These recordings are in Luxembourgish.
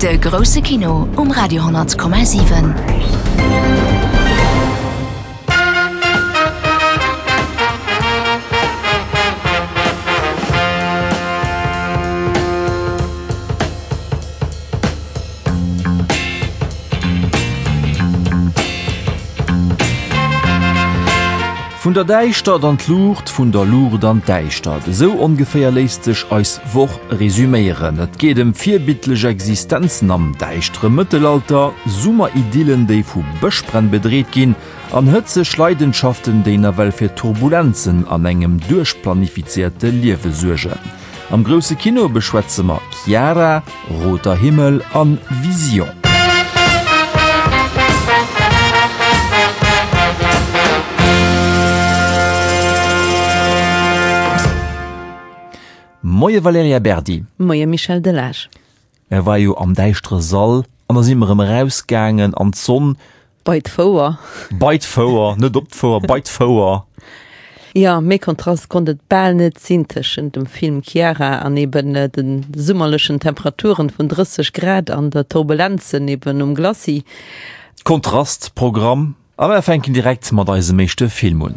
De grousse Kino um Radio 10,7. Vun der Däischtert an d'Luucht, vun der Luucht an d'Däischtert, esou ongeféier léisst sech eis Woch resuméieren. Et geet ëm virbildlech Existenzen am däischtere Mëttelalter, Summeridyllen, déi vu Bëschbränn bedreet ginn, an hëtzeg Leidenschaften, déi nawell fir Turbulenzen an engem duerchplanifizéierte Liewe suergen. Am grousse Kino beschwätze mer Chiara, Roter Himmel an Vision. Moie Valerija Berdi. Moie Michel Delage. Mär war jo am däischtere Sall an da si mer erëm erausgaangen an d'Sonn. Bei d'Fouer. Bei d'Fouer, net op d'Fouer, bei d'Fouer. Jo, méi Kontrast konnt et bal net sinn tëschent dem Film Chiara an eben de summerlechen Temperaturen vun 30 Grad an der Turbulenzen eben um Glacis. Kontrastprogramm. A mer fänken direkt mat eisem éischte Film un.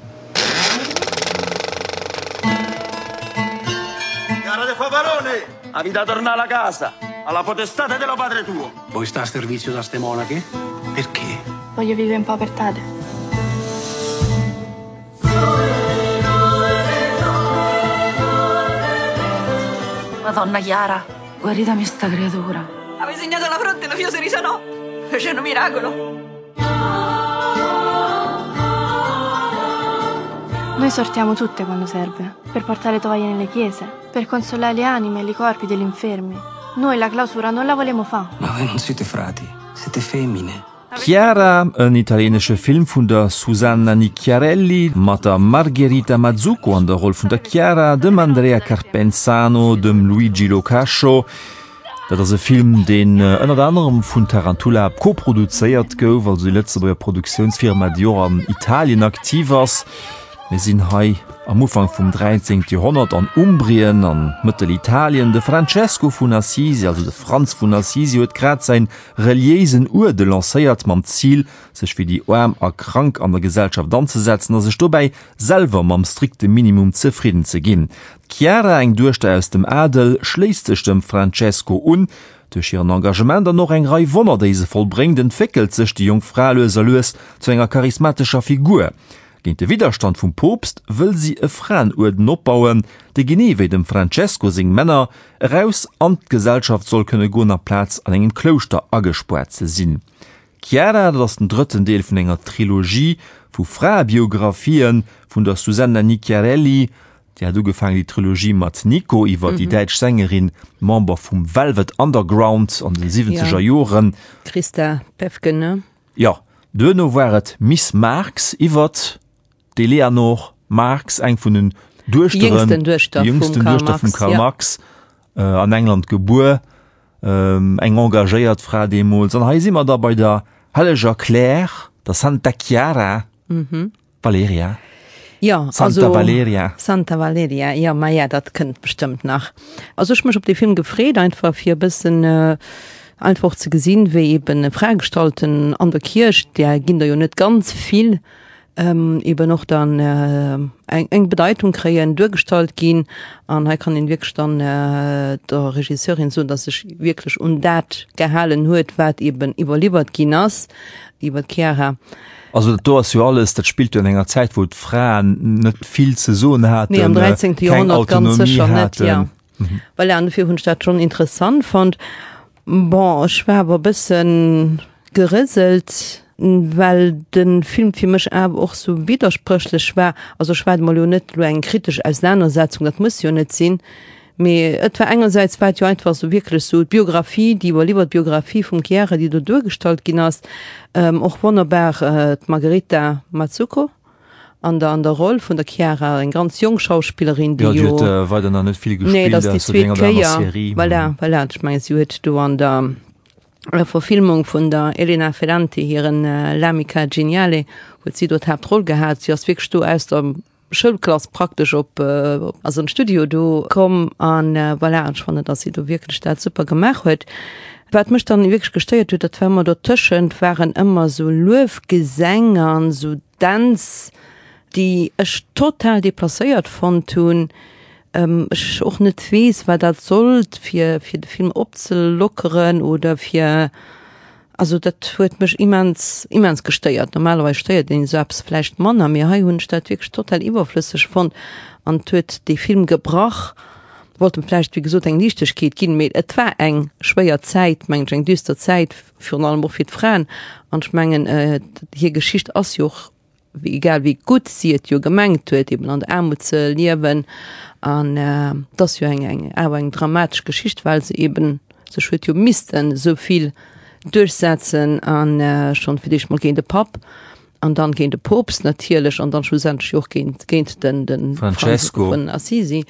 Voi sta a servizio da ste monache? Perché? Voglio vivere in povertade. Madonna Chiara, guaritami sta creatura. Ave segnato la fronte, lo fio si risanò. Fece un miracolo. Noi sortiamo tutte quando serve, per portare tovaglie nelle chiese, per consolare le anime e i corpi degli infermi. Noi la clausura non la volemo fa. Ma voi non siete frati, siete femmine. Chiara, en italienesche Film vun der Susanna Nicchiarelli mat der Margherita Mazzucco an der Roll vun der Chiara, dem Andrea Carpenzano, dem Luigi Lo Cascio. Dat ass e Film, deen ënnert anerem vun Tarantula koproduzéiert gouf, also déi Lëtzebuerger Produktiounsfirma, déi och an Italien aktiv ass. Mir sinn hei am Ufank vum 13. Joerhonnert an Umbrien an Mëttelitalien. De Francesco vun Assisi, also de Franz vun Assisi, huet grad säin reliéisen Uerde lancéiert, mam Zil, sech fir déi Aarm a Krank an der Gesellschaft anzesetzen a sech dobäi selwer mam strikte Minimum zefridden ze ginn. D'Chiara, eng Duechter aus dem Adel, schléisst sech dem Francesco un. Duerch hiren Engagement an och eng Rei Wonner, déi se vollbréngt, entwéckelt sech déi jonk Fra lues a lues zu enger charismatescher Figur. Géint de Widderstand vum Poopst wëll si e Fraenuerden opbauen, dee genee wéi dem Francesco seng Männer, eraus an d'Gesellschaft soll kënne goen, amplaz an engem Klouschter agespaart ze sinn. Chiara, dat ass den drëtten Deel vun enger Trilogie vu Fraebiographien vun der Susanna Nicchiarelli. Déi hat ugefaangen, déi Trilogie mat Nico iwwer déi däitsch Sängerin, Member vum Velvet Underground an den siwwenzeger Joren. Christa Päffgen, ne? Jo, duerno war et Miss Marx iwwert d'Eleanor Marx, eng vun den Duechteren, déi jüngsten Duechter vum Karl Marx, an England gebuer, eng engagéiert Fra deemools. An hei si mer da bei der helleger Claire, der Santa Chiara Valeria. Jo, Santa also, Valeria. Santa Valeria, jo, maja, dat kënnt bestëmmt nach. Also ech hu mech op dee Film gefreet, einfach fir e bëssen einfach och ze gesinn, wéi eben Fraegestalten an der Kierch, där ginn der jo net ganz vill, eben och dann eng eng Bedeitung kréien, duergestallt ginn. An hei kann een wierklech dann der Regisseurin soen, dass sech wierklech un dat gehalen huet, wat eben iwwerliwwert ginn ass iwwer d'Chiara. Also dat do ass jo alles, dat spillt jo an enger Zäit, wou d'Fraen net vill ze soen haten, Nee, am 13. keng Joerhonnert ganz Autonomie sécher net, haten. ja. Voilà, an dofir hunn ech dat schonn interessant fonnt. Bon, ech war awer e bëssen gerëselt, well de Film fir mech awer och sou widderspréchlech war. Also ech waarde mer elo net elo eng kritesch Ausenanersetzung, dat muss jo net sinn, mee et war engersäits war et jo einfach sou wierklech sou d'Biographie, déi iwwerliwwert Biographie vum Chiara, déi do duergestallt ginn ass, och wonnerbar d'Margherita Mazzucco. An der an der Roll vun der Chiara, eng ganz jonk Schauspillerin, déi jo. Jo, déi huet weider nach net vill gespillt, nee, dat ass déi zweet Kéier. Voilà, voilà, ech mengen, si huet do an der Verfilmung vun der Elena Ferrante hiren L'amica geniale huet si do d'Haaptroll gehat. Si ass wierklech do aus der. Schoulklass praktesch op, also an d'Studio do komm an voilà, an ech fannen, dass si do wierklech dat super gemaach huet. Wat mech dann wierklech gestéiert huet, dat war ëmmer dotëschent waren ëmmer esou Luefgesäng an esou Dänz, déi ech total deplacéiert fonnt hunn, ech och net weess, wat dat sollt, fir fir de Film opzelockeren oder fir, also dat huet mech immens immens gestéiert. Normalerweis stéiert een esou eppes vläicht manner, mee hei hunn ech dat wierklech total iwwerflësseg fonnt an et huet dee Film gebrach. Wollt em vläicht, wéi gesot, eng Liichtegkeet ginn, mee et war eng schwéier Zäit, mengen ech, eng düster Zäit, virun allem och fir d'Fraen. An ech mengen, hir Geschicht ass jo och, egal wéi gutt si et jo gemengt huet, eben an der Aarmut ze liewen, an et ass jo eng, eng, awer eng dramatesch Geschicht, well se eben sech huet jo missten esou vill duerchsetzen an schonn fir d'éischt mol géint de Papp an dann géint de Poopst natierlech an dann schlussendlech jo och géint, géint den, den Francesco vun Assisi.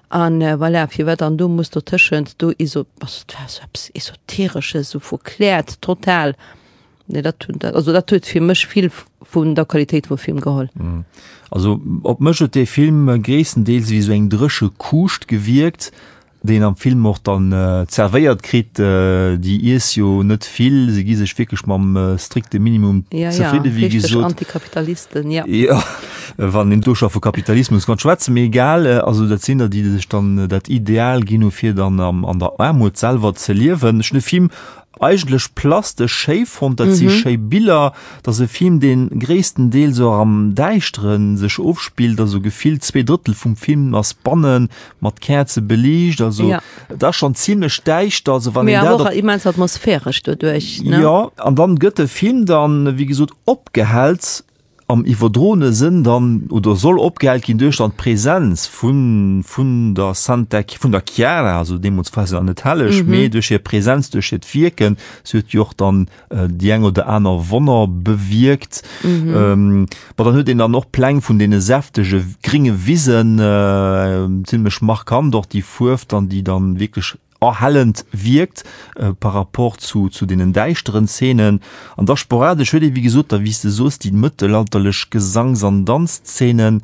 An voilà, firwat dann do muss dotëschent do eso, also et war esou eppes Esoteresches, esou verkläert total. Nee, dat hunn, also dat huet fir mech vill vun der Qualitéit vum Film geholl. Also op mech huet dee Film gréisstendeels wéi esou eng dréche Kuuscht gewierkt, déi een am Film och dann zervéiert kritt. Déi iess jo net vill, se gi sech wierklech mam strikte Minimum zefridde wéi gesot. Ja, ja, richteg Antikapitalisten, ja. Jo, wann een do scho vu Kapitalismus kann schwätzen, mee egal. Also dat sinn der, déi sech dann dat Ideal ginn hu fir dann an der Aarmut selwer ze liewen. Ech hunn de Film Eigentlech plastesch schéi fonnt, dat si schéi Biller, dat ass e Film deen gréisstendeels och am Däischteren sech ofspillt, also gefillt 2 Drëttel vum Film ass bannen mat Käerze beliicht, also et ass schonn zimlech däischter, also wann een dat op. Mee awer och immens atmosphäresch doduerch, ne? Jo, an dann gëtt de Film dann wéi gesot opgehellt am iwwerdroene Sënn dann, oder soll opgehellt ginn duerch dann d'Präsenz vun, vun der Santa, vun der Chiara, also deemools war se nach net helleg, mee duerch hir Präsenz, duerch hiert Wierken, si huet jo och dann déi eng oder aner Wonner bewierkt. Bon, dann huet een dann och Pläng vun deene säftege gringe Wisen, zimlech markant och déi Fuerf dann, déi dann wierklech erhellend wierkt par rapport zu, zu deenen däischteren Szenen. An da sporadesch huet ee wéi gesot da, wéi s de soos, déi mëttelalterlech Gesangs an Danzszenen.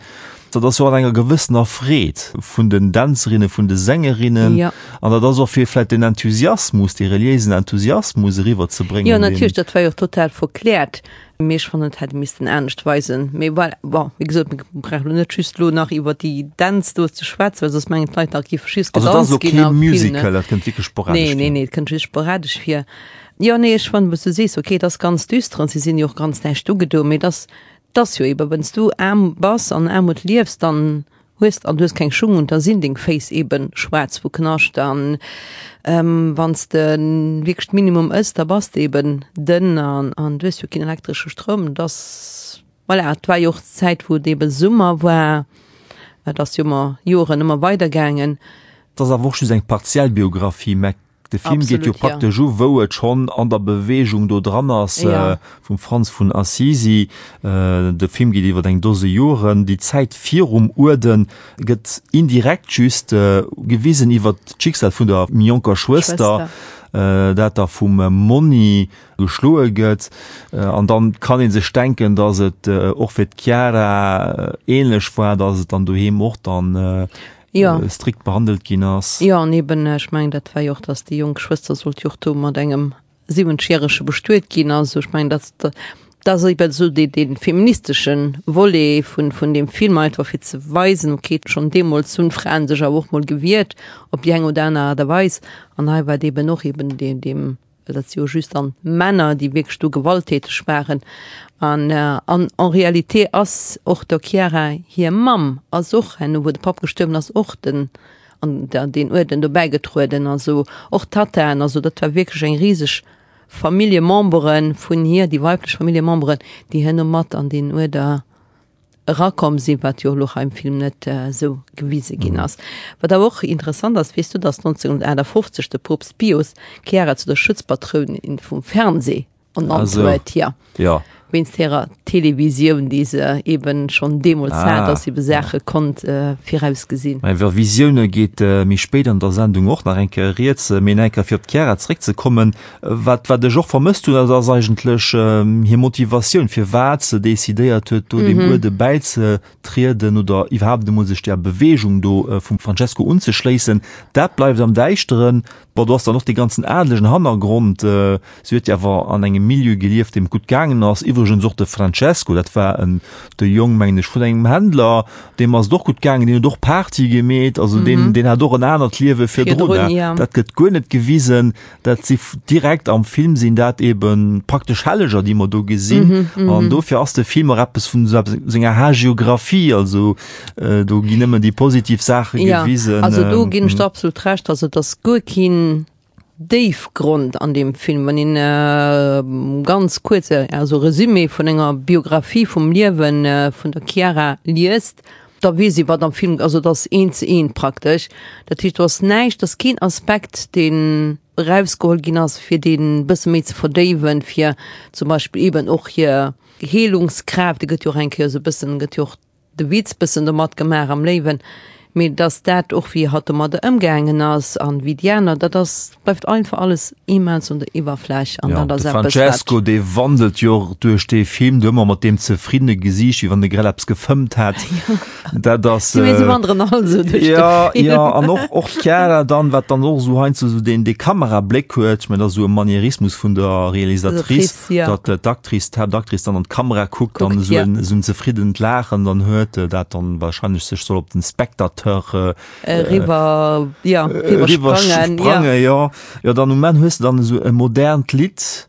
Dat ass jo an enger gewëssener Freed vun den Dänzerinnen, vun de Sängerinnen. Ja. An dat ass och fir vläicht den Enthusiasmus, dee reliéisen Enthusiasmus eriwwerzebréngen. Jo, natierlech, dat war jo och total verkläert. Mee ech fannen, et hätt ee missten anescht weisen. Mee voilà, bon, wéi gesot, mir brauchen elo net just elo nach iwwer déi Dänz do ze schwätzen, well soss mengen d'Leit nach, et géif just Also et ass gedanzt elo ginn kee a Filmen. Musical, dat kënnt wierklech sporadesch Nee, nee, vir. nee, et kënnt just sporadesch vir. Jo, nee, ech fannen, wou s du sees, okay, et ass ganz düster an si sinn jo och ganz näischt ugedo, mee et ass, et ass jo eben, wenn's du aarm bass an Aarmut liefs, dann hues an du hues keng Schung un, da sinn deng Féiss eben schwaarz vu Knascht an wann s de wierklech d'Minimum ëss, da bass de eben dënn an an du hues jo keen elektresche Stroum. Et ass, voilà, et war jo och d'Zäit wou et eben Summer war, et ass jo ëmmer Joren ëmmer weider gaangen. Et ass awer och just eng partiell Biographie, mä De Film geet jo praktesch u wou et schonn an der Beweegung do dran ass vum Franz vun Assisi. De Film geet iwwer eng Dose Joren. Déi Zäit virum Uerden gëtt indirekt just gewisen iwwer d'Schicksal vun der méi jonker Schwëster, dat da vum Monni geschloe gëtt. An dann kann ee sech denken, datt et och fir d'Chiara ähnlech war, datt et dann doheem och dann Ja. strikt behandelt ginn ass. Jo, an eben, ech mengen, dat war jo och, datt déi jonk Schwëster sollt jo och do mat engem siwenzgjärege bestuet ginn. Also ech mengen, dat, dat ass eben esou dee, dee feministesche Volet vun, vun deem Film, einfach fir ze weisen, okay, schonn deemools hunn d'Fraen sech awer och mol gewiert, op déi eng oder aner Aart a Weis. An hei war et eben och eben dee, deem well dat si jo just dann Männer, déi wierklech do gewalttäteg waren. An, an en réalité ass och der Chiara hir Mamm ass och herno, wou de Papp gestuerwen ass, och den, an der, deen Uerden do bäigetrueden, also och d'Tattaen, also dat war wierklech eng riseg Familljemembere vun hir, déi weiblech Familljememberen, déi herno mat an deen Uerder erakomm sinn, wat jo elo hei am Film net esou gewise ginn ass. Wat awer och interessant ass, weess du, datt 1958 de Poopst Pius d'Chiara zu der Schutzpatrounin vum Fernseh ernannt huet? Jo. Jo. Wéinst hirer Televisioun, déi se eben schonn deemools hat, dass se ebe Saache konnt virausgesinn. Mä iwwer Visioune geet méi spéit an der Sendung och nach eng Kéier rieds. Mee nach eng Kéier fir op d'Chiara zeréckzekommen, Wat, wat ech och vermësst hunn, dat ass eigentlech hir Motivatioun, firwat se decidéiert huet, do deem Uerde bäizetrieden oder iwwerhaapt emol sech där Beweegung do vum Francesco unzeschléissen. Dat bleift am Däischteren. Bon, do ass dann och dee ganzen adelegen Hannergrond. Si huet jo awer an engem Milieu gelieft, deem et gutt gaangen ass. Iwwregens och de Francesco, dat war en, de Jong, mengen ech, vun engem Händler, deem ass et och gutt gaangen, deen huet och Party gemeet. Also deen, deen hat och en anert Liewe virdrun. Dat gëtt guer net gewisen. Dat si direkt am Film sinn dat eben praktesch Helleger, déi mer do gesinn. An dofir ass de Film och eppes vun esou eppes senger Hagiographie, also do ginn nëmmen déi positiv Saache gewisen. Ja, also do ginn ech der absolut Recht, also et ass guer keen Déifgrond an deem Film. Wann een ganz kuerz, also Resumé vun enger Biographie vum Liewe vun der Chiara liest, da weess ee wat am Film, also et ass eent ze eent praktesch. Dat heescht do ass näischt, ass keen Aspekt deen erausgeholl ginn ass fir deen e bësse méi ze verdéiwen, fir zum Beispill eben och hir Heelungskraaft, déi gëtt jo och eng Kéier esou e bëssen, gëtt jo och de Witz bëssen domat gemaach am Léiwen, mee datt dat och wéi hatt domadder ëmgaangen ass an wéi déi aner, dat ass, bleift einfach alles immens un der Iwwerfläch an dat ass eppes wat. De Francesco dee wandelt jo och duerch dee Film do ëmmer mat deem zefriddene Gesiicht, wéi wann e grad eppes gefëmmt hätt. Dat ass. Si si wanderen all esou duerch de Film. Jo, an och och d'Chiara dann, wat dann och esou heiansdo esou deen dee Kamerabléck huet, ech mengen dat ass esou e Manierismus vun der Realisatrice, datt d'Actrice, d'Haaptactrice dann an d'Kamera kuckt an esou en esou en zefriddent Laachen dann huet, dat dann wahrscheinlech sech soll op den Spectateur Eriwwer, ja, eriwwer sprangen, ja. Jo, dann um Enn hues de dann esou e modernt Lidd.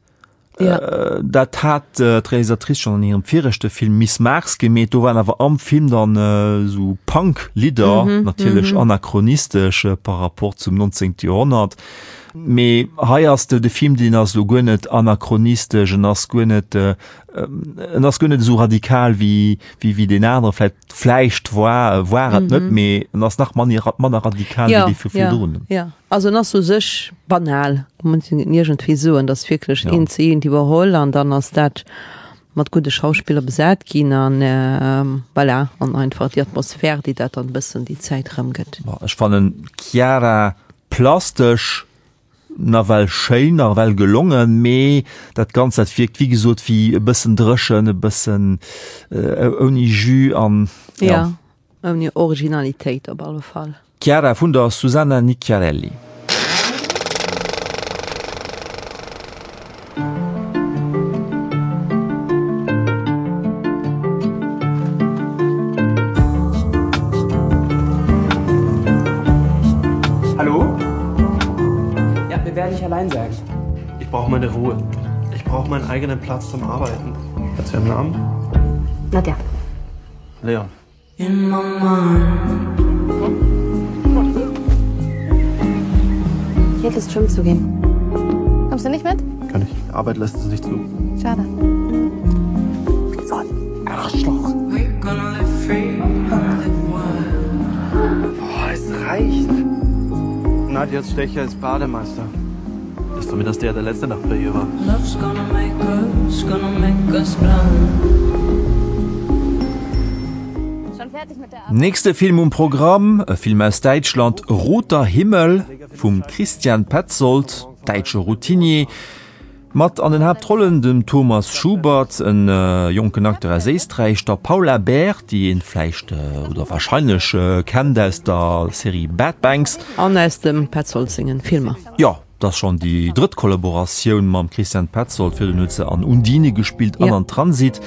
Ja. Dat hat d'Realisatrice schonn an hirem viregte Film Miss Mars gemeet. Do waren awer am Film dann esou Punk-Lidder, natierlech anachronistesch par rapport zum 19. Joerhonnert. Mee hei ass de Film, deen ass elo guer net anachronistesch, en ass guer net, en ass guer net esou radikal wéi, wéi deen anere vläicht. Vläicht war war et net, mee en ass nach manner manner radikal wéi déi vu virdrun. Ja, ja. Also en ass u sech banal, muss een iergendwéi soen, dat ass wierklech eent zu eent iwwerholl an dann ass dat mat gudde Schauspiller besat ginn an voilà, an einfach déi Atmosphär, déi dat dann e bëssen déi Zäit erëmgëtt. Ech fannen d'Chiara plastesch Nawell schéin, nawell gelongen, mee dat Ganzt dat wierkt wéi gesot wéi e bëssen dréchen, e bëssen ouni Jus an ja. Ja, ouni Originalitéit op alle Fall. Chiara vun der Susanna Nicchiarelli. Hallo? Ja, mir werde ich allein sein. Ich brauche meine Ruhe. Ich brauche meinen eigenen Platz zum Arbeiten. Hat sie einen Namen? Nadja. Leon. In my mind. Ich hätte Lust, schwimmen zu gehen. Kommst du nicht mit? Kann ich. Arbeit lässt es nicht zu. Schade. So ein Arschloch. Boah, es reicht. Nadjas Stecher ist Bademeister. Ist zumindest der, der letzte Nacht bei ihr war. Love's gonna make us, gonna make us blind. Nächste Film um Programm, e Film aus Däitschland, Roter Himmel vum Christian Petzold, däitsche Routinier, mat an den Haaptrollen dem Thomas Schubert, en jonken Acteur aus Éisträich, der Paula Beer, déi een vläicht oder warscheinlech kennt aus der Serie Bad Banks. An aus dem Petzold sengen Filmer. Jo, et ass schonn déi drëtt Kollaboratioun mam Christian Petzold. Virdrun huet se an Undine gespillt an an Transit.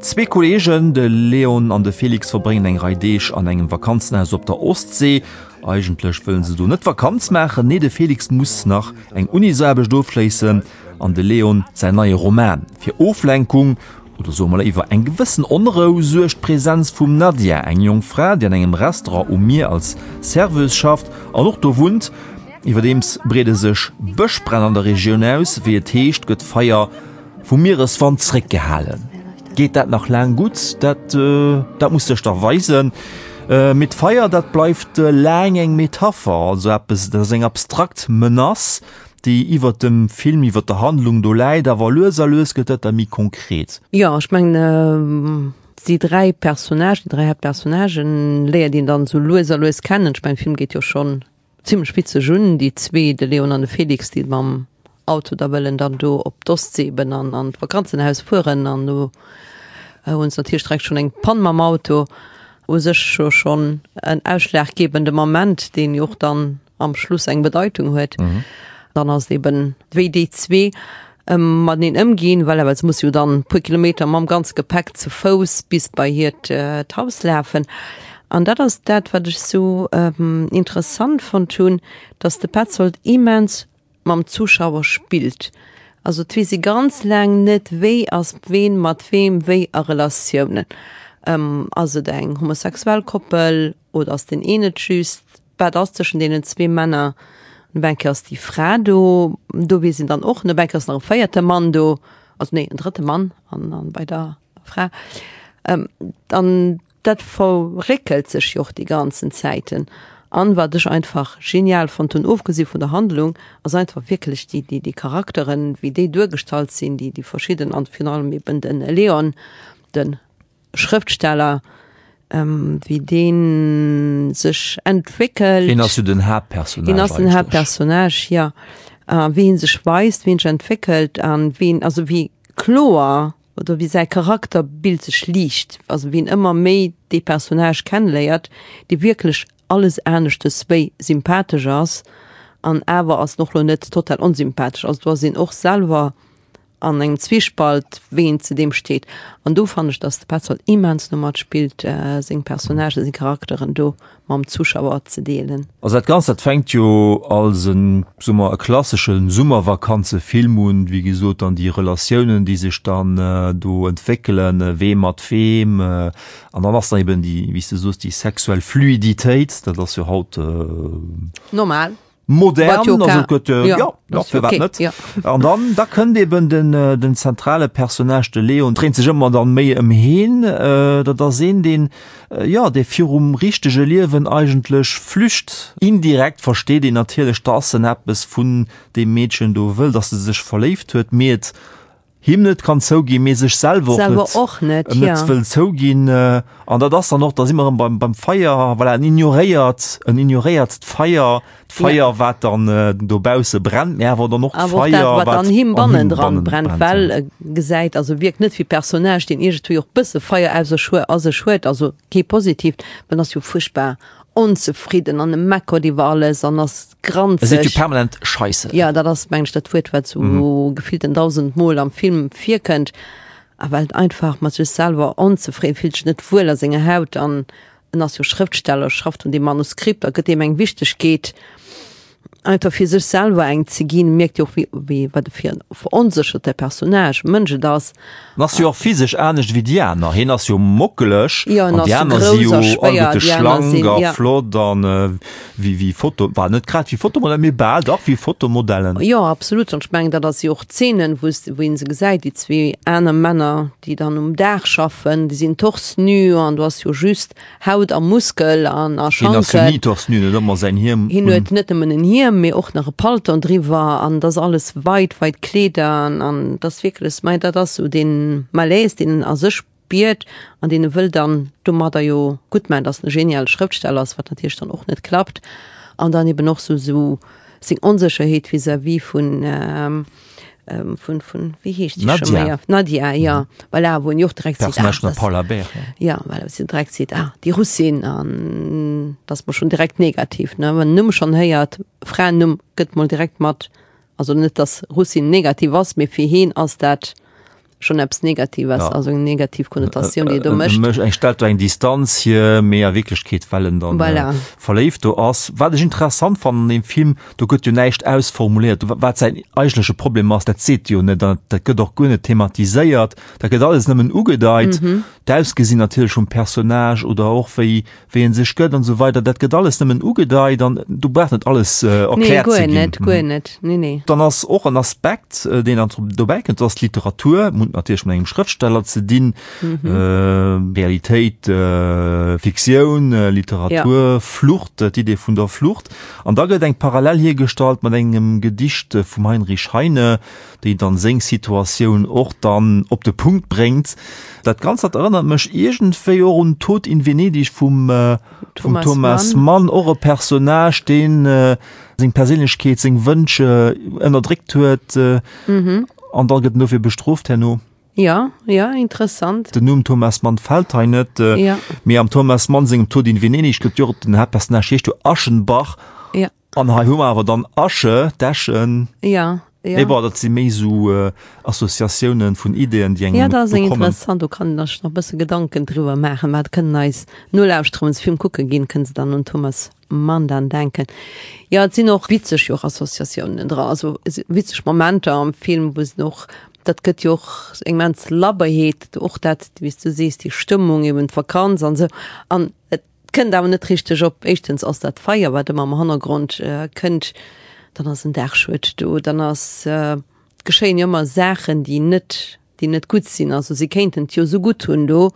Zwee Kolleegen, de Leon an de Felix, verbréngen eng Rei Deeg an engem Vakanzenhaus op der Ostsee. Eigentlech wëllen se do net Vakanz maachen, nee de Felix muss nach eng Unisaarbecht ofschléissen an de Leon säin neie Roman. Fir Oflenkung oder soe mer léiwer eng gewëssen Onrou suergt d'Presenz vum Nadia, eng jonk Fra, déi an engem Restaurant um Mier als Serveuse schafft an och do wunnt. Iwwerdeems breede sech Bëschbränn an der Regioun aus. Wéi et heescht, gëtt d'Feier vum Miereswand zréckgehalen. Geet dat nach laang gutt? Dat dat muss sech da weisen. Mee d'Feier, dat bleift laang eng Metapher, also eppes, dat ass eng abstrakt Menace. Déi iwwert dem Film, iwwert der Handlung do läit, awer lues a lues gëtt dat da méi konkret. Jo, ech mengen, déi 3 Personnagen, déi 3 Haaptpersonnagen léiert een dann esou lues a lues kennen. Ech mengen, de Film geet jo schonn zimlech witzeg un, déi zwee, de Leon an de Felix, déi mam Auto da wëllen dann do op d'Ostsee eben an an d'Vakanzenhaus fueren an do hunn se natierlech direkt schonn eng Pann mam Auto. U sech jo schonn en ausschlaggebende Moment, deen jo och dann am Schluss eng Bedeitung huet. Mhm. Dann ass eben wéi déi zwee ähm, mateneen ëmginn, well awer se muss jo dann puer Kilometer mam ganze Gepäck zu Fouss bis bei hiert äh, d'Haus lafen. An dat ass dat, wat ech sou ähm, interessant fonnt hunn, dass de Petzold immens mam Zuschauer spillt. Also et weess ee ganz laang net, wéi ass ween mat weem wéi a Relatiounen. Ähm, ass et eng homosexuell Koppel oder ass deen een et just? Wat ass tëschent deenen zwee Männer? Op eng Kéier ass déi Fra do, do weess een dann och net. Op eng Kéier ass nach e véierte Mann do, also nee, en drëtte Mann an, an bei der Fra. Ähm, an dat verréckelt sech jo och déi ganzen Zäiten. An wat ech einfach genial fonnt hunn, ofgesi vun der Handlung, ass einfach wierklech déi, déi, déi Charakteren, wéi déi duergestallt sinn, déi, déi verschidden an virun allem eben de Leon, de Schrëftsteller, wéi dee sech entwéckelt. Hien ass jo den Haaptpersonnage. Hien ass den Haaptpersonnage, jo. A wéi hie sech weist, wéi hien sech entwéckelt an wéi en, also wéi kloer oder wéi säi Charakterbild sech liicht, also wéi en ëmmer méi dee Personnage kenneléiert, dee wierklech alles aneschtes wéi sympathesch ass an awer ass en och lo net total onsympathesch. Also do ass een och selwer an engem Zwiespalt, wéi een zu deem steet. An do fannen ech, dass de Petzold immens no matspillt, seng Personnagen, seng Charakteren do mam Zuschauer ze deelen. Also dat Ganzt, dat fänkt jo als en, soe mer, e klassesche Summervakanzefilm un, wéi gesot, dann déi Relatiounen, déi sech dann do entwéckelen, wee mat weem, an dann ass da eben déi, wéi s de soos, déi sexuell Fluiditéit, dat ass jo haut Normal. Modern, also gëtt ja, ja, ja, firwat net? Ja. An dann da kënnt eben den, äh, den zentrale Personnage de Leon dréint sech ëmmer dann méi ëm heen. Äh, dat ass een deen äh, ja dee virum richtege Liewen eigentlech flücht. Indirekt versteet een natierlech, dass en eppes vun deem Meedchen do wëll, dass e sech verléift huet, mee et him net kann zouginn, mee sech selwer och Selwer net, och net, net ja. wëll zouginn. An dat ass dann och, da si mer erëm beim, beim Feier, voilà, en ignoréiert, en ignoréiert d'Feier, d'Feier, Ja. wat dann dobausse brennt, mee awer dann och Awer och dat, d'Feier, wat wat an him an him bannendran bannen brennt, brennt, well ja. e gesäit, also wierkt net wéi Personnage, deen iergendwéi och bësse Feier aus sech hue, a sech huet, also kee positiivt, well en ass jo fuerchtbar onzefridden an e meckert iwwer alles an ass granzeg. E seet jo permanent Scheisse. Ja, dat ass, meng ech, dat Wuert, wat sou gefillten dausendmol am Film virkënnt. A well en einfach mat sech selwer onzefridden, fillt sech net wuel a senger Haut an en ass jo Schrëftsteller, schafft un deem Manuskript a gëtt deem eng Wichtegkeet, einfach fir sech selwer eng ze ginn. Mierkt jo och, wéi, wéi, wat e fir en veronsécherte Personnage, Mënsch et ass. En ass jo och physesch anescht wéi déi aner. Hien ass jo mockeleg Jo, en an déi ass aner si grouss jo a schwéier, alleguerte déi aner schlank sinn, a ja. flott an wéi, wéi Foto, bah, net grad wéi Fotomodellen, mee bal dach wéi Fotomodellen. Jo, absolut. An ech mengen, dat ass jo och d'Szenen, wou s, wou een se gesäit, déi zwee aner Männer, déi dann um Daach schaffen, déi sinn torse nu an du ass jo just Haut a Muskel an a Hien ass jo Schanken. ni torse nu, en huet ëmmer säin Hiem Hien un. huet net nëmmen en Hiem, mee och nach e Palton driwwer an et ass alles weit, weit Kleeder an, an et ass wierklech, mei dat ass esou dee Malaise, deen en a sech spiert an deen e wëll dann domadder jo gutt maachen, dass en e geniale Schrëftsteller ass, wat natierlech dann och net klappt an dann eben och sou sou seng Onsécherheet vis-à-vis vun vun vun wéi heescht déi scho Nadia. méi? Nadia, ja, voilà, wou en jo och direkt seet, ah, Personnage vun der das, Paula Beer, ja. ja, voilà, wou si direkt seet, ah, déi Russin an dat ass mol schonn direkt negativ, ne, wann en Numm schonn héiert, Fraennumm gëtt mol direkt mat, also net dass Russin negativ ass, mee fir heen ass dat schon eppes Negatives, Ja. also eng negativ Konnotatioun, déi e do mécht. Mécht eng stellt do eng Distanz hier, mee a Wierklechkeet well en dann Voilà. äh, verléift do ass. Wat ech interessant fannen an deem Film, do gëtt jo näischt ausformuléiert, wa- wat säin eigentleche Problem ass, dat seet jo net, dat, dat gëtt och guer net thematiséiert, dat gëtt alles nëmmen ugedeit. Mhm. D'Ausgesinn natierlech vum Personnage oder och wéi wéi en sech gëtt an esou weider, dat gëtt alles nëmmen ugedeit an do brauch net alles Nee, erkläert ze guer ginn. net, guer net, nee, nee. Dann ass och en Aspekt, deen dann dobäi kënnt, dat ass d'Literatur. hunn et natierlech mat engem Schrëftsteller ze dinn. Mhm. Realitéit, Fiktioun, Literatur, ja. Flucht, d'Idee vun der Flucht. An da gëtt eng Parallel hiergestallt mat engem Gedicht vum Heinrich Heine, déi dann seng Situatioun och dann op de Punkt bréngt. Dat Ganzt dat erënnert mech iergendwéi och un Tod in Venedig vum, äh, vum Thomas, Thomas Mann. Mann, och e Personnage, deen äh, seng Perséinlechkeet, seng Wënsch äh, ënnerdréckt huet äh, mhm. an dann gëtt en dofir bestrooft herno. Ja, ja, interessant. Den Numm Thomas Mann fält hei net, äh, ja. mee am Thomas Mann sengem Tod in Venedig gëtt jo den Haaptpersonnage heescht jo Aschenbach. Ja. An hei hu mer awer dann Asche, d'Äschen. Ja, ja. Mee bon, dat si méi esou Associatiounen vun Ideeën, déi engem Ja, dat ass eng interessant, do kann een sech nach e bësse Gedanken driwwer maachen. Mä dat kënnen eis Nolauschterer, wann se Film kucke ginn, kënne se dann un Thomas Mann dann denken. Jo, et sinn och witzeg jo och Associatiounen dra, also witzeg Momenter am Film, wou se och, dat gëtt jo och eng immens Labberheet, och dat, wéi s du sees, déi Stëmmung eben, d'Vakanz an esou. An et Kënnt awer net richteg op. Éischtens ass dat Feier, wat ëmmer am Hannergrond kënnt, dann ass en Daachschued do, dann ass, et geschéien jo ëmmer Saachen, déi net, déi net gutt sinn. Also si kéinten et jo esou gutt hunn do,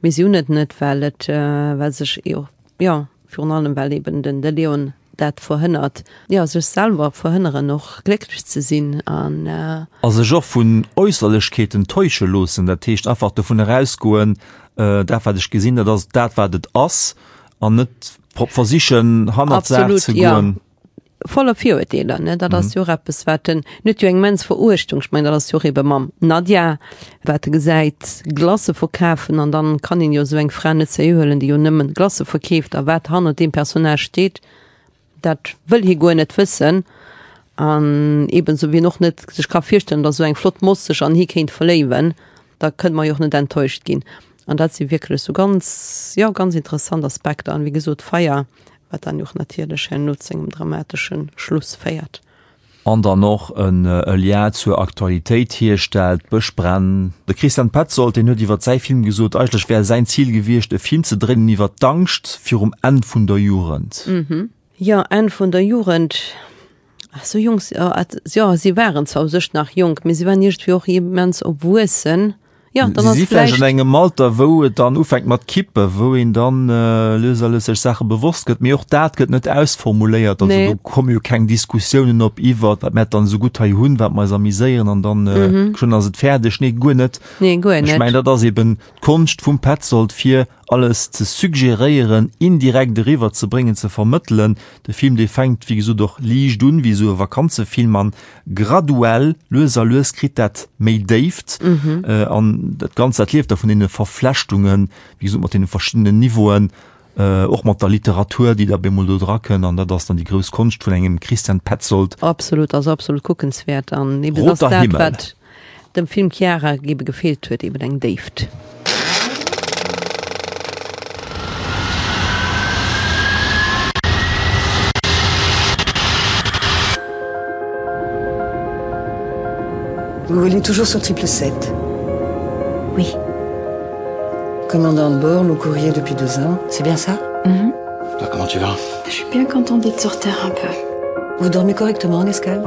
mee si hunn et net, well et, well sech jo, jo, virun allem well eben den de Leon dat verhënnert, jo, sech selwer verhënneren och glécklech ze sinn an. A sech och vun Äusserlechkeeten täusche loossen, dat heescht einfach dovun erausgoen, Dat wat ech gesinn, dat ass dat wat et ass an net versichen hannert d'Saach ze goen. Ja, voller Virurteeler, ne, dat ass jo och eppes wat en, en huet jo eng immens Veruechtung, ech mengen dat ass jo och ebe mam Nadia, wat e gesäit Glacë verkafen an dann kann een jo esou eng Fra net seriö huelen, déi jo nëmmen Glacë verkeeft a wat hannert deem Personnage steet. Dat wëll hie guer net wëssen. An eben sou wéi en och net sech ka virstellen, datt esou eng flott Moss sech an hie kéint verléiwen, da kënne mer jo och net enttäuscht ginn. An dat si wierklech sou ganz, jo, ganz interessant Aspekter. An wéi gesot, d'Feier, wat dann jo och natierlech herno zu engem dramatesche Schluss féiert. An dann och e Lien zur Aktualitéit hierstellt, d'Bëschbränn. De Christian Petzold, deen huet iwwer säi Film gesot, eigentlech wär säin Zil gewiescht, e Film ze dréinen iwwer d'Angscht virum Enn vun der Jugend. Jo, Enn vun der Jugend. Sou jonk, jo, si waren zwar u sech nach jonk, mee si waren iergendwéi och immens erwuessen. Ja, dann ass vläicht an engem Alter, wou et dann ufänkt mat kippen, wou een dann äh, lues a lues sech Saache bewosst gëtt, mee och dat gëtt net ausformuléiert. Also nee. do komme jo keng Diskussiounen op iwwer, wat mer dann esou gutt hei hunn, wat mer eis amiséieren an dann äh, mhm. schon ass et fäerdeg. Nee, guer net. Nee, guer net. Ech mengen, dat ass eben d'Konscht vum Petzold fir alles ze suggeréieren, indirekt eriwwer ze bréngen, ze vermëttelen. De Film, dee fänkt wéi gesot och liicht un, wéi esou e Vakanzefilm an graduell, lues a lues kritt dat méi Déift an dat Ganzt, dat lieft da vun deene Verflechtungen, wéi gesot mat deene verschiddenen Niveauen, och mat der Literatur, déi da bemol do dra kënn an dat ass dann déi grouss Konscht vun engem Christian Petzold. Absolut, ass absolut kuckenswäert an eben ass dat, wat dem Film Chiara ebe gefeelt huet, eben eng Déift. Vous volez toujours sur triple 7 Oui. Commandant de bord, le courrier depuis deux ans, c'est bien ça mm -hmm. Toi, comment tu vas Je suis bien contente d'être sur terre un peu. Vous dormez correctement en escale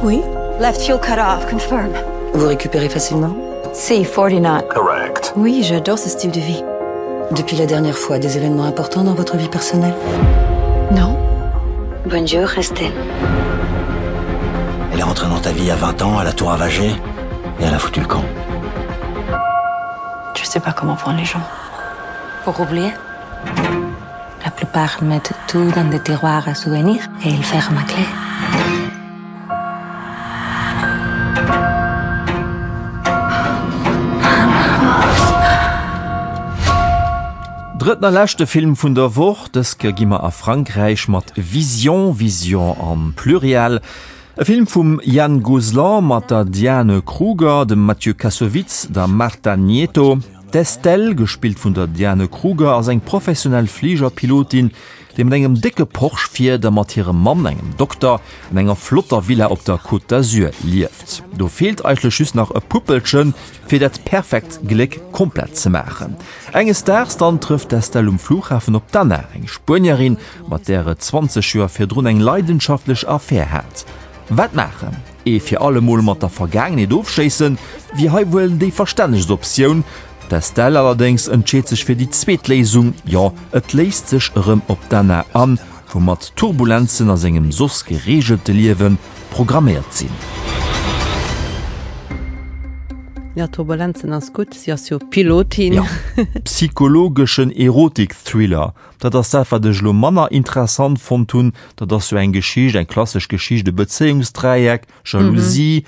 Oui. Left fuel cut off, confirm. Vous récupérez facilement Si, 40 knots. Correct. Oui, j'adore ce style de vie. Depuis la dernière fois, des événements importants dans votre vie personnelle Non. Bonjour, Estelle. Elle est rentrée dans ta vie à 20 ans, elle a tout ravagé et elle a foutu le camp. Je sais pas comment prendre les gens. Pour oublier La plupart mettent tout dans des tiroirs à souvenirs et ils ferment à clé. Drëtten a leschte Film vun der Woch, dës Kéier gi mer a Frankräich mat Vision, Vision am Pluriel. E Film vum Yann Gozlan mat der Diane Kruger, dem Mathieu Kassovitz, der Marta Nieto. D'Estelle, gespillt vun der Diane Kruger, ass eng professionell Fligerpilotin, déi mat engem décke Porsche fiert a mat hirem Mann, engem Dokter, an enger flotter Villa op der Côte d'Azur lieft. Do feelt eigentlech just nach e Puppelchen, fir dat perfekt Gléck komplett ze maachen. Enges Daags dann trëfft d'Estelle um Flughafen op d'Anna, eng Spuenierin, mat där et 20 Joer virdrun eng leidenschaftlech Affär hat. Wat maachen? Ee fir alle Mol mat der Vergaangenheet ofschléissen, wier hei wuel déi verstännegst Optioun. D'Estelle allerdéngs entscheet sech fir déi zweet Léisung, jo, et léisst sech erëm op d'Anna an, woumat Turbulenzen a sengem soss gereegelte Liewe programméiert sinn. Jo, Turbulenzen ass gutt, si ass jo Pilotin. Jo, psychologeschen Erotik-Thriller, dat ass dat, wat ech elo manner interessant fonnt hunn. Dat ass jo eng Geschicht, eng klassesch Geschicht, e Bezéiungsdräieck, Jalousie,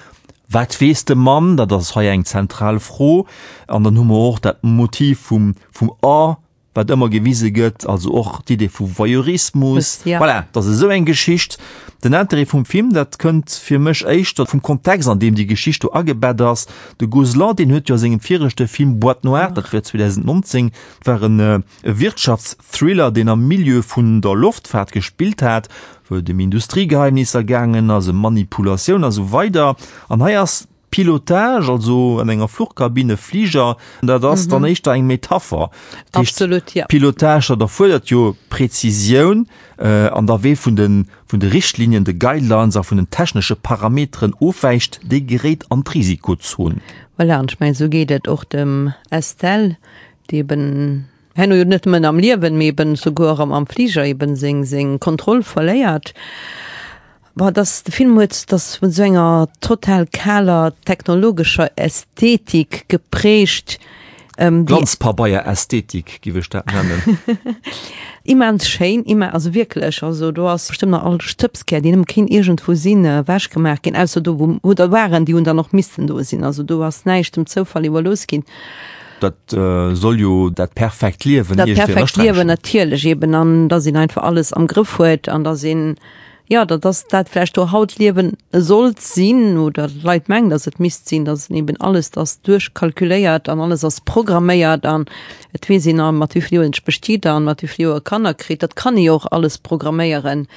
Wat weess de Mann? Dat ass hei eng zentral Fro. An dann hu mer och dat Motiv vum, vum A, wat ëmmer gewise gëtt, also och d'Idee vu Voyeurismus. Ja. Voilà, dat ass esou eng Geschicht. Den Interêt vum Film, dat kënnt fir mech éischter vum Kontext, an deem déi Geschicht do agebett ass. De Gozlan, deen huet jo a sengem viregte Film Boîte noire, dat war 2019, dat war en e Wirtschaftsthriller, deen am Milieu vun der Loftfaart gespillt hat, wou et ëm Industriegeheimnisser gaangen ass, ëm Manipulatioun a sou weider. An hei ass Pilotage, also an enger Fluchkabinn, e Fliger, dat ass dann éischter eng Metapher. Dat heescht, Absolut, ja. Pilotage, dat erfuerdert jo Präzisioun an da wee vun de, vun de Richtlinien, de Guidelines a vun den technesche Parameteren ofwäicht, dee geréit an d'Risikozon. Voilà, an ech mengen, esou geet et och dem Estelle, déi eben Herno jo net nëmmen am Liewen, mee eben souguer am am Fliger eben seng seng Kontroll verléiert. Bon, dass de Film huet, dass vun esou enger total kaler technologescher Ästhetik geprägt, déi. Glanzpabeier-Ästhetik, giff ech dat nennen. Immens schéin, immen, also wierklech, also do ass bestëmmt nach all Stëbskär, deen nëmme kéint iergendwou sinn, ewechgemaach ginn, ausser do wou wou der waren, déi hunn dann och missten do sinn, also do ass näischt dem Zoufall iwwerlooss ginn. Dat soll jo dat perfekt Liewen Dat perfekt Liewen natierlech eben an dass een einfach alles am Grëff huet an dass een, jo dat ass dat vläicht do haut Liewen sollt sinn oder d'Leit mengen, dass et misst sinn, dass een eben alles ass duerchkalkuléiert an alles ass programméiert an et weess een a mat wéi vill Joer een sech bestiet an mat wéi vill Joer e Kanner kritt. Dat kann ee jo och alles programméieren.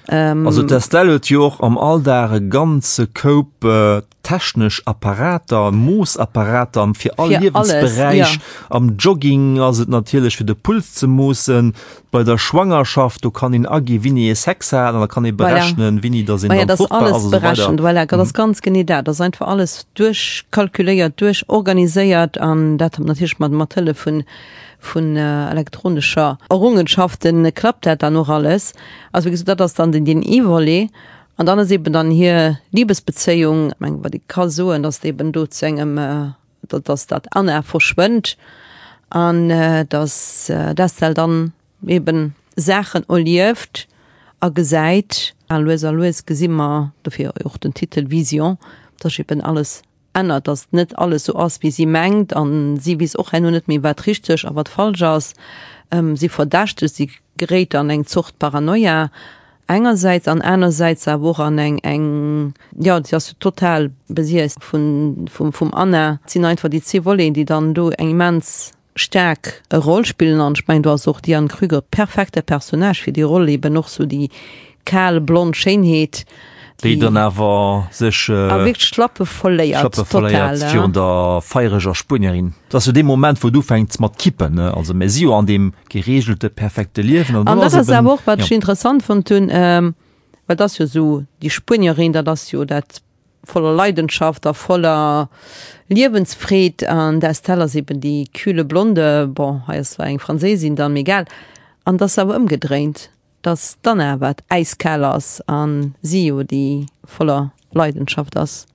Also d'Estelle huet jo och am Alldag e ganze Koup Technesch Apparater, Moossapparater fir all Liewensberäich. Am Jogging ass et natierlech fir de Puls ze moossen. Bei der Schwangerschaft, do kann een agi wéini ee Sex hat an da kann ee berechnen, wéini datt een dann fruchtbar ass a sou weider. Voilà, dat ass ganz genee dat. Dat ass einfach alles duerchkalkuléiert, duerchorganiséiert an dat natierlech mat mat Hëllef vun vun elektronescher Errungenschaften klappt dat dann och alles. Also wéi gesot, dat ass dann den deen ee Volet. An dann ass eben dann hir Liebesbezéiung, ech mengen, wat ee ka soen, datt eben do zu engem, datt dat Anna verschwënnt an datt d'Estelle dann eben Saachen erlieft a gesäit. A lues a lues gesi mer, dofir och den Titel Vision, datt eben alles ännert, datt net alles sou ass, wéi si mengt an si weess och herno net méi, wat richteg a wat falsch ass. Si verdächtegt, si geréit an eng Zort Paranoia engersäits an anersäits awer och an eng, eng, jo, si ass jo total besiess vun, vum, vum Anna. Et sinn einfach déi zwee Voleten, déi dann do eng immens staark Roll spillen an ech mengen do ass och d'Diane Krüger perfekte Personnage fir déi Roll, eben och sou déi kal blond Schéinheet, déi dann awer sech a wierklech d'Schlappe verléiert, Schlappe verléiert virun der feiereger Spuenierin. Dat ass jo dee Moment wou et ufänkt mat kippen, ne, also mir si jo an deem gereegelte perfekte Liewen an dat ass awer och wat ech interessant fonnt hunn, well dat ass jo sou déi Spuenierin, dat ass jo dat voller Leidenschaft a voller Liewensfreed an d'Estelle ass eben déi kühle Blonde, bon hei ass zwar eng Franséisin dann, mee egal, an et ass awer ëmgedréint, dass d'Anna wat äiskal ass an si jo déi voller Leidenschaft ass.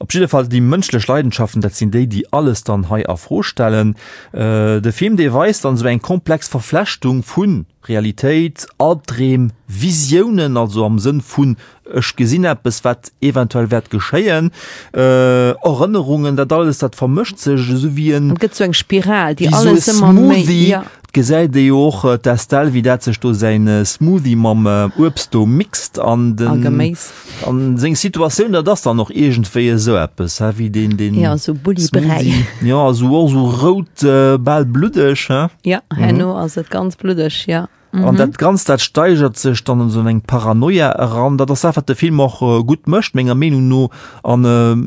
Op jidde Fall déi mënschlech Leidenschaften, dat sinn déi, déi alles dann hei a Fro stellen. De Film, dee weist dann esou eng komplex Verflechtung vu Realitéit, Albdreem, Visiounen, also am Sënn vun ech gesinn eppes, wat eventuell wäert geschéien, Erënnerungen, dat alles, dat vermëscht sech esou wéi en. Et gëtt esou eng Spiral, déi alles ëmmer méi, Smoothie. Ja. Et gesäit ee jo och d'Estelle, wéi dat sech do säin Smoothie mam Uebst do mixt an den. A Geméis. An seng Situatioun, dat ass dann och iergendwéi esou eppes, hä, wéi deen, deen. Ja, esou Bulli-Bräi. Smoothie. Ja, esou och esou rout, bal bluddeg, hä? Ja, herno ass et ganz bluddeg, ja. An dat Ganzt, dat steigert sech dann an esou eng Paranoia eran. Dat ass dat, wat de Film och gutt mécht, menger Meenung no. An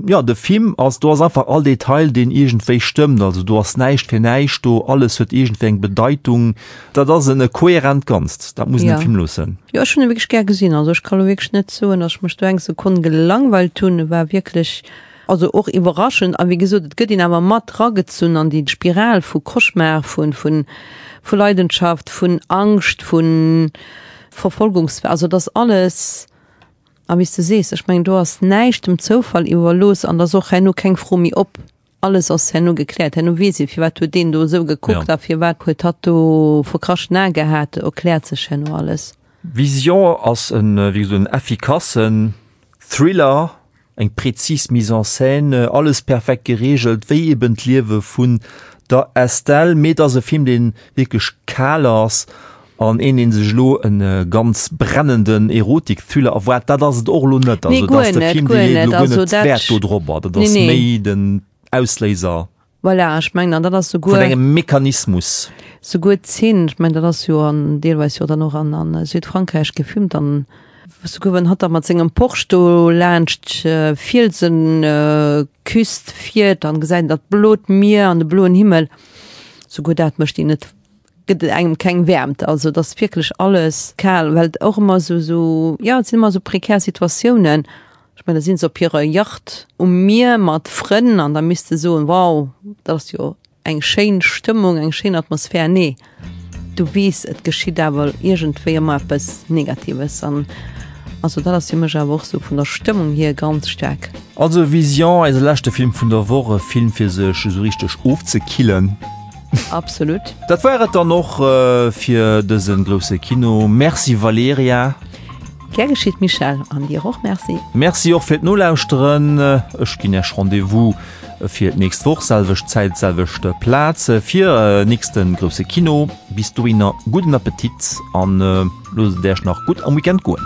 jo, de Film ass, do ass einfach all Detail, deen iergendwéi stëmmt. Also do ass näischt fir näischt do, alles huet iergendwéi eng Bedeitung. Dat ass en kohärent Ganzt, dat muss een dem Film loossen. Jo, ech hunn e wierklech gär gesinn. Also ech ka lo wierklech net soen, datt ech mech do eng Sekonn gelangweilt hunn. E war wierklech Also och iwwerraschend, a wéi gesot, et gëtt een awer mat ragezunn an déi Spiral vu Cauchemar, vu, vu, vu Leidenschaft, vun Angscht, vu Verfolgungs-, also et ass alles, a wéi s de sees, ech mengen do ass näischt dem Zoufall iwwerlooss an et ass och herno keng Fro méi op, alles ass herno gekläert, herno weess ee firwat huet deen do esou gekuckt a firwat huet hatt do verkraschten Ae gehat, erkläert sech herno alles. Vision ass en, wéi gesot, en effikassen Thriller, Eng präzis Mise en scène, alles perfekt gereegelt, wéi eben d'Liewe vun der Estelle. Mee et ass e Film, dee wierklech kal ass an een, dee sech elo e ganz brennenden Erotik-Thriller erwaart, dat ass et och elo net. Also et ass de Film, dee leet elo guer net Wäert do drobber. Dat ass méi den Ausléiser. Voilà, ech mengen, an dat ass souguer. Vun engem Mechanismus. Souguer d'Zeen, ech mengen, dat ass jo an, deelweis jo dann och an, a Südfrankräich gefilmt, an souguer wann hatt da mat sengem Porsche do laanscht d'Fielsenküst fiert, dann gesäit een dat blot Mier an de bloen Himmel, souguer dat mécht een net, gëtt et engem keng Wäermt. Also et ass wierklech alles kal, well et och ëmmer esou, esou, jo, et sinn ëmmer esou prekär Situatiounen. Ech mengen, da si se op hirer Yacht um Mier mat Frënn an da misst de soen, wow, dat ass jo eng schéin Stëmmung, eng schéin Atmosphär. Nee, du weess, et geschitt awer iergendwéi ëmmer eppes Negatives. An also dat ass fir mech awer och sou vun der Stëmmung hier ganz staark. Also Vision, eise leschte Film vun der Woch, e Film fir sech esou richteg ofzekillen. Absolut. Dat war et dann och fir dëse grousse Kino. Merci Valerija. Gär geschitt Michèle, an dir och Merci. Merci och fir d'Nolauschteren. Ech ginn Iech Rendez-vous fir d'nächst Woch, selwecht Zäit, selwecht Plaz, fir nächste grousse Kino. Bis dohinner gudden Appetit an loosst et Iech nach gutt am Weekend goen.